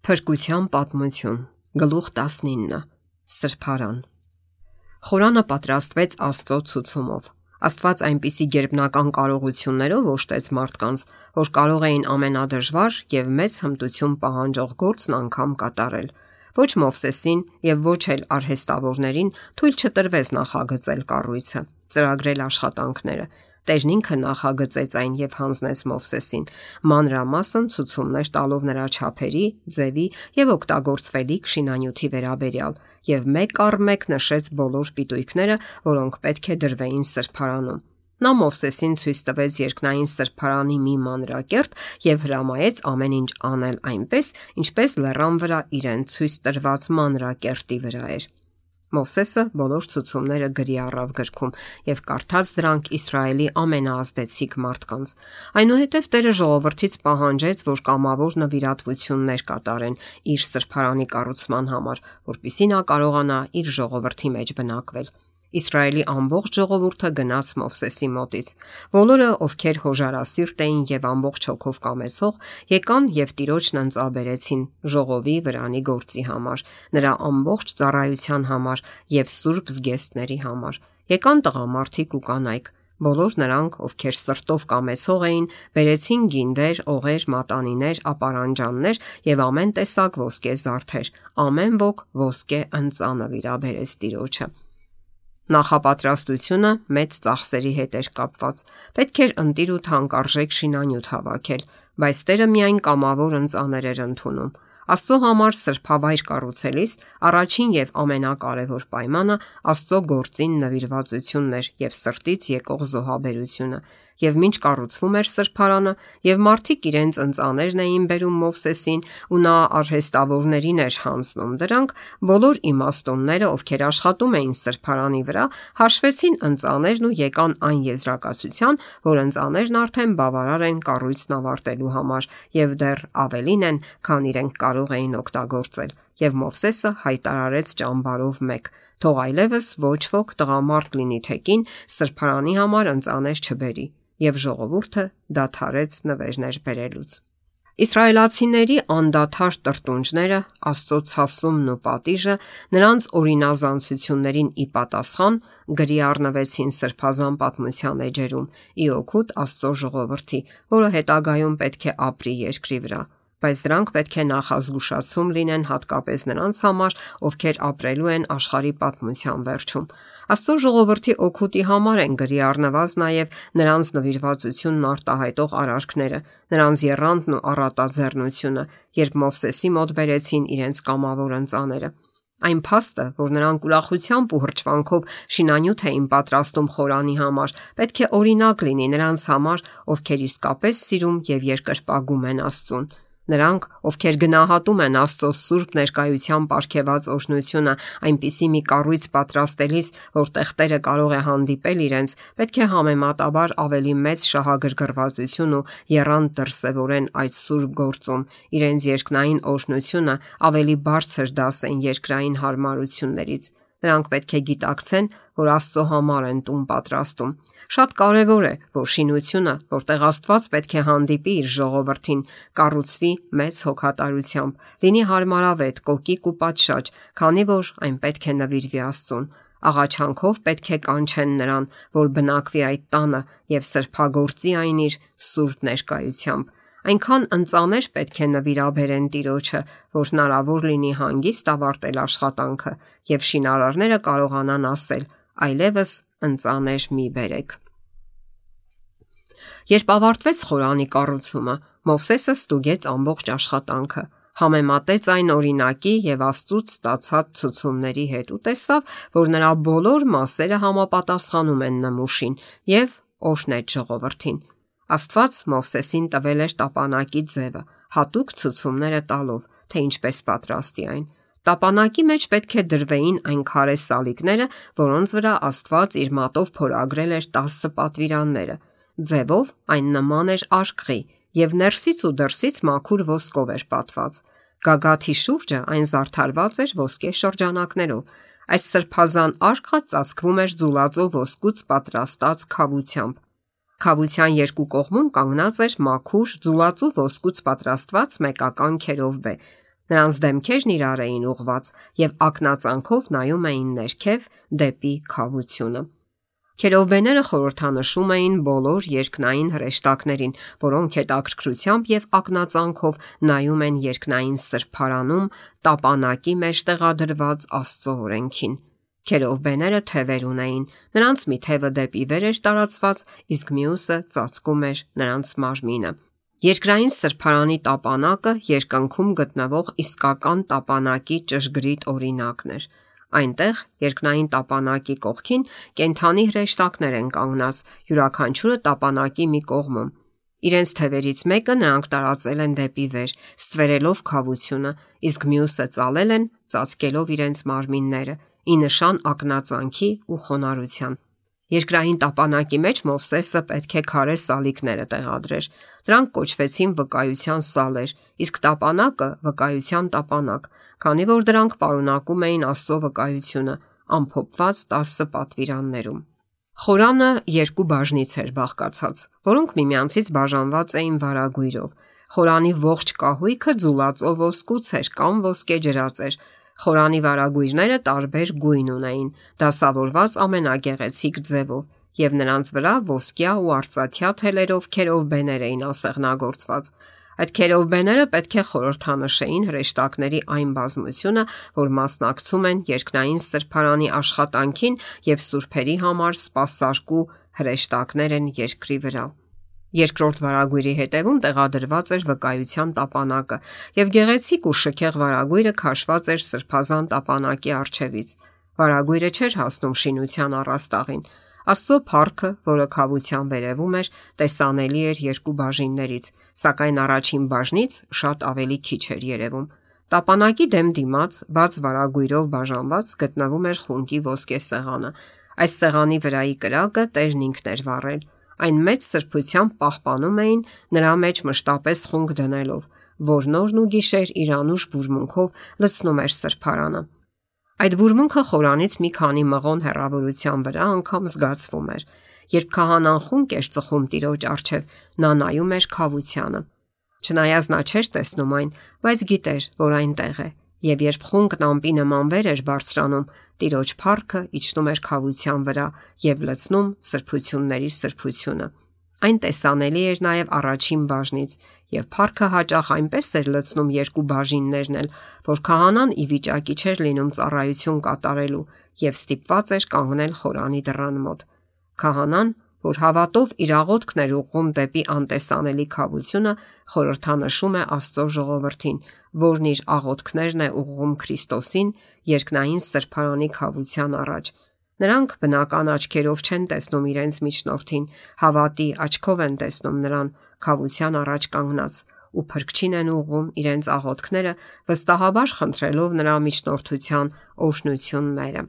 Փրկության պատմություն, գլուխ 19, Սրբարան։ Խորանը պատրաստվեց Աստծո ցուցումով։ Աստված այնպիսի գերբնական կարողություններով օժտեց մարդկանց, որ կարող էին ամենադժվար եւ մեծ հմտություն պահանջող գործն անգամ կատարել։ Ոչ Մովսեսին եւ ոչ էլ արհեստավորներին թույլ չտրվեց նախագծել կառույցը, ծրագրել աշխատանքները։ Տերն ինքը նախագծեց այն եւ հանձնեց Մովսեսին, մանրամասն ցուցումներ տալով նրա չափերի, ձևի եւ օգտագործվելիք շինանյութի վերաբերյալ, եւ մեկ առ մեկ նշեց բոլոր պիտույքները, որոնք պետք է դրվեին սրբարանում։ Նա Մովսեսին ցույց տվեց երկնային սրբարանի մի մանրակերտ եւ հրամայեց ամեն ինչ անել այնպես, ինչպես լեռան վրա իրեն ցույց տրված մանրակերտի վրա էր։ Մովսեսը բոլոր ցուցումները գրի առավ գրքում եւ կարդաց դրանք Իսրայելի ամենաազդեցիկ մարդկանց։ Այնուհետև Տերը ժողովրդից պահանջեց, որ կամավոր նվիրատվություններ կատարեն իր սրբարանի կառուցման համար, որպեսզի նա կարողանա իր ժողովրդի մեջ բնակվել։ Իսրայելի ամբողջ ժողովուրդը գնաց Մովսեսի մոտից։ Բոլորը, ովքեր հոժարասիրտ էին եւ ամբողջ հոգով կամեցող, եկան եւ Տիրոջն ընծաբերեցին ժողովի վրանի գործի համար, նրա ամբողջ ծառայության համար եւ սուրբ զգեստների համար։ Եկան տղամարդիկ ու կանայք։ Բոլոր նրանք, ովքեր սրտով կամեցող էին, բերեցին գինդեր, օղեր, մատանիներ, ապարանջաններ եւ ամեն տեսակ ոսկե զարդեր։ Ամեն ոք ոսկե ընծանը վիրաբերեց Տիրոջը։ Նախապատրաստությունը մեծ ծախսերի հետ էր կապված։ Պետք էր ընտիր ու թանկարժեք շինանյութ հավաքել, բայց Տերը միայն կամավոր ընծաներ էր ընդունում։ Աստծո համար սրբավայր կառուցելիս առաջին եւ ամենակարևոր պայմանը Աստծո գործին նվիրվածությունն էր եւ սրտից եկող զոհաբերությունը։ Եվ մինչ կառուցվում էր սրբարանը, եւ մարդիկ իրենց ընծաներն էին բերում Մովսեսին, ու նա արհեստավորներին էր հանձնում դրանք, բոլոր իմաստունները, ովքեր աշխատում էին սրբարանի վրա, հաշվեցին ընծաներն ու եկան այն եզրակացության, որ ընծաներն արդեն բավարար են կառույցն ավարտելու համար եւ դեռ ավելին են, քան իրենք կարող էին օգտագործել։ Եվ Մովսեսը հայտարարեց ճամբարով մեկ. թող այլևս ոչ ոք տղամարդ լինի թե կին սրբարանի համար ընծաներ չբերի, եւ ժողովուրդը դադարեց նվերներ բերելուց։ Իսրայելացիների անդադար տրտունջները, Աստծո ցասումն ու պատիժը նրանց օրինազանցություններին ի պատասխան գրի առնվեցին սրբազան պատմության էջերում՝ ի օգուտ Աստծո ժողովրդի, որը հետագայում պետք է ապրի երկրի վրա։ Բայց դրանք պետք է նախազգուշացում լինեն հատկապես նրանց համար, ովքեր ապրելու են աշխարհի պատմության վերջում։ Աստծո ժողովրդի օգուտի համար են գրի առնված նաև նրանց նվիրվածությունն արտահայտող արարքները, նրանց եռանդն ու առատաձեռնությունը, երբ Մովսեսի մոտ բերեցին իրենց կամավոր ընծաները։ Այն փաստը, որ նրանք ուրախությամբ ու հրճվանքով շինանյութ էին պատրաստում խորանի համար, պետք է օրինակ լինի նրանց համար, ովքեր իսկապես սիրում եւ երկրպագում են Աստծուն։ Նրանք, ովքեր գնահատում են Աստծո սուրբ ներկայության պարգևած օրհնությունը այնպիսի մի կառույց պատրաստելիս, որտեղ Տերը կարող է հանդիպել իրենց, պետք է համեմատաբար ավելի մեծ շահագրգռվածություն ու եռանդ դրսևորեն այդ սուրբ գործում, իրենց երկնային օրհնությունը ավելի բարձր դասեն երկրային հարմարություններից։ Նրանք պետք է գիտակցեն, որ Աստծո համար են տուն պատրաստում։ Շատ կարևոր է, որ շինությունը, որտեղ Աստված պետք է հանդիպի իր ժողովրդին, կառուցվի մեծ հոգատարությամբ, լինի հարմարավետ, կոկիկ ու պատշաճ, քանի որ այն պետք է նվիրվի Աստծուն։ Աղաչանքով պետք է կանչեն նրան, որ բնակվի այդ տանը եւ սրբագործի այն իր սուրբ ներկայությամբ։ Այնքան ընծաներ պետք է նվիրաբերեն Տիրոջը, որ հնարավոր լինի հանգիստ ավարտել աշխատանքը եւ շինարարները կարողանան ասել. այլևս ընծաներ մի բերեք։ Երբ ավարտվեց խորանի կառուցումը, Մովսեսը ստուգեց ամբողջ աշխատանքը, համեմատեց այն օրինակի եւ Աստծուց ստացած ցուցումների հետ ու տեսավ, որ նրա բոլոր մասերը համապատասխանում են նմուշին եւ օրհնեց ժողովրդին։ Աստված Մովսեսին տվել էր տապանակի ձևը, հատուկ ցուցումները տալով, թե ինչպես պատրաստի այն։ Տապանակի մեջ պետք է դրվեին այն քարե սալիկները, որոնց վրա Աստված իր մատով փորագրել էր 10 պատվիրանները։ Ձևով այն նման էր արկղի եւ ներսից ու դրսից մաքուր ոսկով էր պատված։ Գագաթի շուրջը այն զարդարված էր ոսկե շրջանակներով։ Այս սրբազան արկղը ծածկվում էր ձուլածո ոսկուց պատրաստած քավությամբ։ Քավության երկու կողմում կանգնած էր մաքուր ձուլածու ոսկուց պատրաստված մեկական քերովբե, Նրանց դեմքերն իրար էին ուղված եւ ակնածանքով նայում էին ներքև դեպի քավությունը։ Քերովբեները խորհրդանշում էին բոլոր երկնային հրեշտակներին, որոնք հետաքրքրությամբ եւ ակնածանքով նայում են երկնային սրբարանում տապանակի մեջ տեղադրված Աստծո օրենքին։ Քերովբեները թևեր ունեին, նրանց մի թևը դեպի վեր էր տարածված, իսկ մյուսը ծածկում էր նրանց մարմինը։ Երկրային սրբարանի տապանակը երկնքում գտնվող իսկական տապանակի ճշգրիտ օրինակն էր։ Այնտեղ երկնային տապանակի կողքին կենդանի հրեշտակներ են կանգնած, յուրաքանչյուրը տապանակի մի կողմում։ Իրենց թևերից մեկը նրանք տարածել են դեպի վեր, ստվերելով քավությունը, իսկ մյուսը ծալել են, ծածկելով իրենց մարմինները, ի նշան ակնածանքի ու խոնարհության։ Երկրային տապանակի մեջ Մովսեսը պետք է քարե սալիկները տեղադրեր։ Դրանք կոչվեցին վկայության սալեր, իսկ տապանակը վկայության տապանակ, քանի որ դրանք պարունակում էին Աստծո վկայությունը, ամփոփված 10 պատվիրաններում։ Խորանը երկու բաժնից էր բաղկացած, որոնք միմյանցից բաժանված էին վարագույրով։ Խորանի ողջ կահույքը ձուլածով ոսկուց էր կամ ոսկե ջրած էր։ Խորանի վարագույրները տարբեր գույն ունեին, դասավորված ամենագեղեցիկ ձևով, եւ նրանց վրա ոսկյա ու արծաթյա թելերով քերովբեներ էին ասեղնագործված։ Այդ քերովբեները պետք է խորհրդանշեին հրեշտակների այն բազմությունը, որ մասնակցում են երկնային սրբարանի աշխատանքին եւ սուրբերի համար սպասարկու հրեշտակներ են երկրի վրա։ Երկրորդ վարագույրի հետևում տեղադրված էր վկայության տապանակը, եւ գեղեցիկ ու շքեղ վարագույրը քաշված էր սրբազան տապանակի առջևից։ Վարագույրը չէր հասնում շինության առաստաղին։ Աստծո փառքը, որը քավության վերևում էր, տեսանելի էր երկու բաժիններից, սակայն առաջին բաժնից շատ ավելի քիչ էր երևում։ Տապանակի դեմ դիմաց, բաց վարագույրով բաժանված գտնվում էր խունկի ոսկե սեղանը։ Այս սեղանի վրայի կրակը Տերն ինքն էր վառել։ Այն մեծ սրբությամբ պահպանում էին նրա մեջ մշտապես խունկ դնելով, որ նորն ու գիշեր իր անուշ բուրմունքով լցնում էր սրբարանը։ Այդ բուրմունքը խորանից մի քանի մղոն հեռավորության վրա անգամ զգացվում էր։ Երբ քահանան խունկ էր ծխում Տիրոջ առջև, նա նայում էր քավությանը։ Չնայած նա չէր տեսնում այն, բայց գիտեր, որ այնտեղ է, եւ երբ խունկն ամպի նման վեր էր բարձրանում, Տիրոջ փառքը իջնում էր քավության վրա եւ լցնում սրբությունների սրբությունը։ Այն տեսանելի էր նաև առաջին բաժնից, եւ փառքը հաճախ այնպես էր լցնում երկու բաժիններն էլ, որ քահանան ի վիճակի չէր լինում ծառայություն կատարելու եւ ստիպված էր կանգնել խորանի դռան մոտ։ Քահանան, որ հավատով իր աղոթքն էր ուղղում դեպի անտեսանելի քավությունը, խորհրդանշում է Աստծո ժողովրդին, որն իր աղոթքներն է ուղղում Քրիստոսին երկնային սրբարանի քավության առաջ։ Նրանք բնական աչքերով չեն տեսնում իրենց միջնորդին, հավատի աչքով են տեսնում նրան քավության առաջ կանգնած ու փրկչին են ուղղում իրենց աղոթքները, վստահաբար խնդրելով նրա միջնորդության օրհնությունները։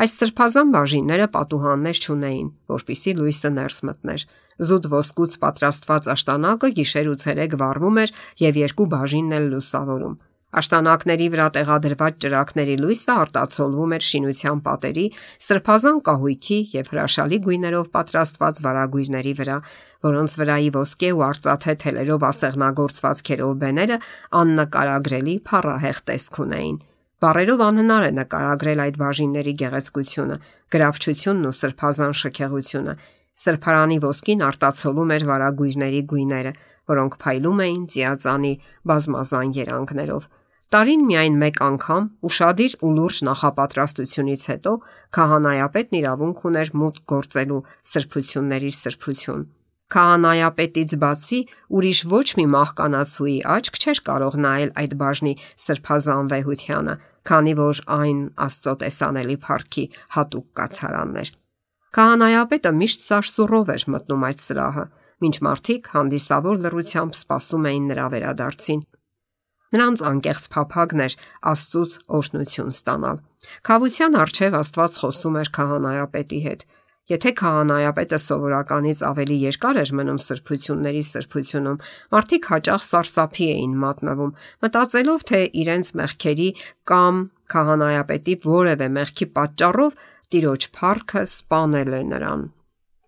Այս սրբազան բաժինները պատուհաններ չունեին, որպիսի լույսը ներս մտներ։ Զուտ ոսկուց պատրաստված աշտանակը գիշեր ու ցերեկ վառվում էր եւ երկու բաժինն էլ լուսավորում։ Աշտանակների վրա տեղադրված ճրագների լույսը արտացոլվում էր շինության պատերի, սրբազան կահույքի եւ հրաշալի գույներով պատրաստված վարագույրների վրա, որոնց վրայի ոսկե ու արծաթե թելերով ասեղնագործված քերովբեները աննկարագրելի փառահեղ տեսք ունեին։ Բառերով անհնար է նկարագրել այդ բաժինների գեղեցկությունը, գրավչությունն ու սրբազան շքեղությունը։ Սրբարանի ոսկին արտացոլում էր վարագույրների գույները, որոնք փայլում էին ծիածանի բազմազան երանգներով։ Տարին միայն մեկ անգամ ուշադիր ու լուրջ նախապատրաստությունից հետո քահանայապետն իրավունք ուներ մուտք գործելու սրբությունների սրբություն։ Քահանայապետից բացի ուրիշ ոչ մի մահկանացուի աչք չէր կարող նայել այդ բաժնի սրբազան վեհությանը, քանի որ այն Աստծո տեսանելի փառքի հատուկ կացարանն էր։ Քահանայապետը միշտ սարսուռով էր մտնում այդ սրահը, մինչ մարդիկ հանդիսավոր լռությամբ սպասում էին նրա վերադարձին։ Նրանց անկեղծ փափագն էր Աստծուց օրհնություն ստանալ։ Քավության առջև Աստված խոսում էր քահանայապետի հետ։ Եթե քահանայապետը սովորականից ավելի երկար էր մնում սրբությունների սրբությունում, մարդիկ հաճախ սարսափի էին մատնվում, մտածելով, թե իրենց մեղքերի կամ քահանայապետի որևէ մեղքի պատճառով Տիրոջ փառքը սպանել է նրան։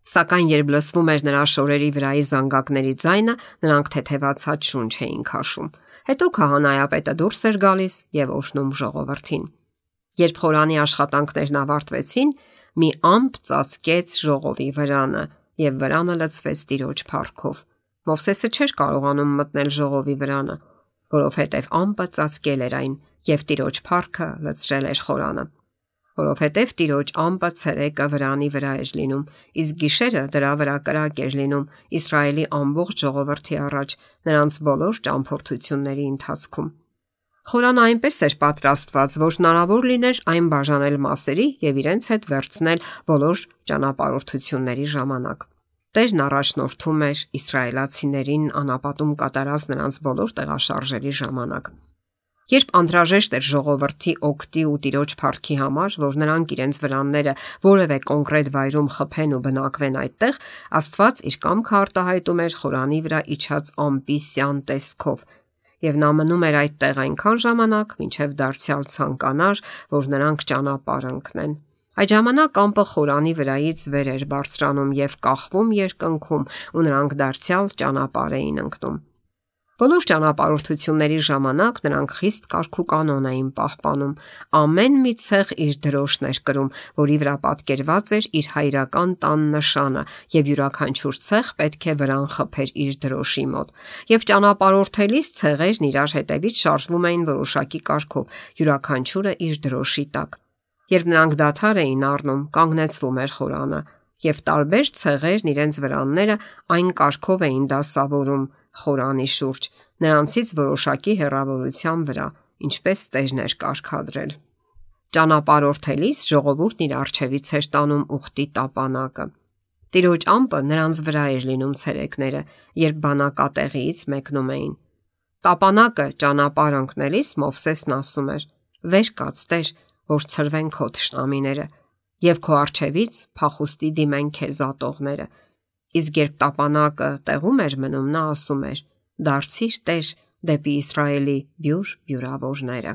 Սակայն երբ լսվում էր նրա շորերի վրայի զանգակների ձայնը, նրանք թեթևացած շունչ էին քաշում։ Հետո քահանայապետը դուրս էր գալիս եւ օշնում ժողովրդին։ Երբ խորանի աշխատանքներն ավարտվեցին, մի ամպ ծածկեց ժողովի վրանը եւ վրանը լցվեց Տիրոջ փառքով։ Մովսեսը չէր կարողանում մտնել ժողովի վրանը, որովհետեւ ամպը ծածկել էր այն եւ Տիրոջ փառքը լցրել էր խորանը։ Որովհետև Տիրոջ ամպը ցերեկը վրանի վրա էր լինում, իսկ գիշերը դրա վրա կրակ էր լինում Իսրայելի ամբողջ ժողովրդի առաջ նրանց բոլոր ճամփորդությունների ընթացքում։ Խորանը այնպես էր պատրաստված, որ հնարավոր լիներ այն բաժանել մասերի եւ իրենց հետ վերցնել բոլոր ճանապարհորդությունների ժամանակ։ Տերն առաջնորդում էր իսրայելացիներին անապատում կատարած նրանց բոլոր տեղաշարժերի ժամանակ։ Երբ անհրաժեշտ էր ժողովրդի օգտի ու Տիրոջ փառքի համար, որ նրանք իրենց վրանները որևէ կոնկրետ վայրում խփեն ու բնակվեն այդտեղ, Աստված իր կամքը արտահայտում էր խորանի վրա իջած ամպի սյան տեսքով, եւ նա մնում էր այդտեղ այնքան ժամանակ, մինչև դարձյալ ցանկանար, որ նրանք ճանապարհ ընկնեն։ Այդ ժամանակ ամպը խորանի վրայից վեր էր բարձրանում եւ կախվում երկնքում, ու նրանք դարձյալ ճանապարհ էին ընկնում։ Բոլոր ճանապարհորդությունների ժամանակ նրանք խիստ կարգուկանոն էին պահպանում։ Ամեն մի ցեղ իր դրոշն էր կրում, որի վրա պատկերված էր իր հայրական տան նշանը, եւ յուրաքանչյուր ցեղ պետք է վրան խփեր իր դրոշի մոտ։ Եվ ճանապարհորդելիս ցեղերն իրար հետևից շարժվում էին որոշակի կարգով, յուրաքանչյուրը իր դրոշի տակ։ Երբ նրանք դադար էին առնում, կանգնեցվում էր խորանը, եւ տարբեր ցեղերն իրենց վրանները այն կարգով էին դասավորում խորանի շուրջ, նրանցից որոշակի հեռավորության վրա, ինչպես Տերն էր կարգադրել։ Ճանապարհորդելիս ժողովուրդն իր առջևից էր տանում ուխտի տապանակը։ Տիրոջ ամպը նրանց վրա էր լինում ցերեկները, երբ բանակատեղիից մեկնում էին։ Տապանակը ճանապարհ ընկնելիս Մովսեսն ասում էր. «Վեր կաց, Տեր, որ ցրվեն քո թշնամիները, եւ քո առջևից փախուստի դիմեն քեզ ատողները»։ Իսկ երբ տապանակը տեղում էր մնում, նա ասում էր. «Դարձիր, Տեր, դեպի Իսրայելի բյուր բյուրավորները»։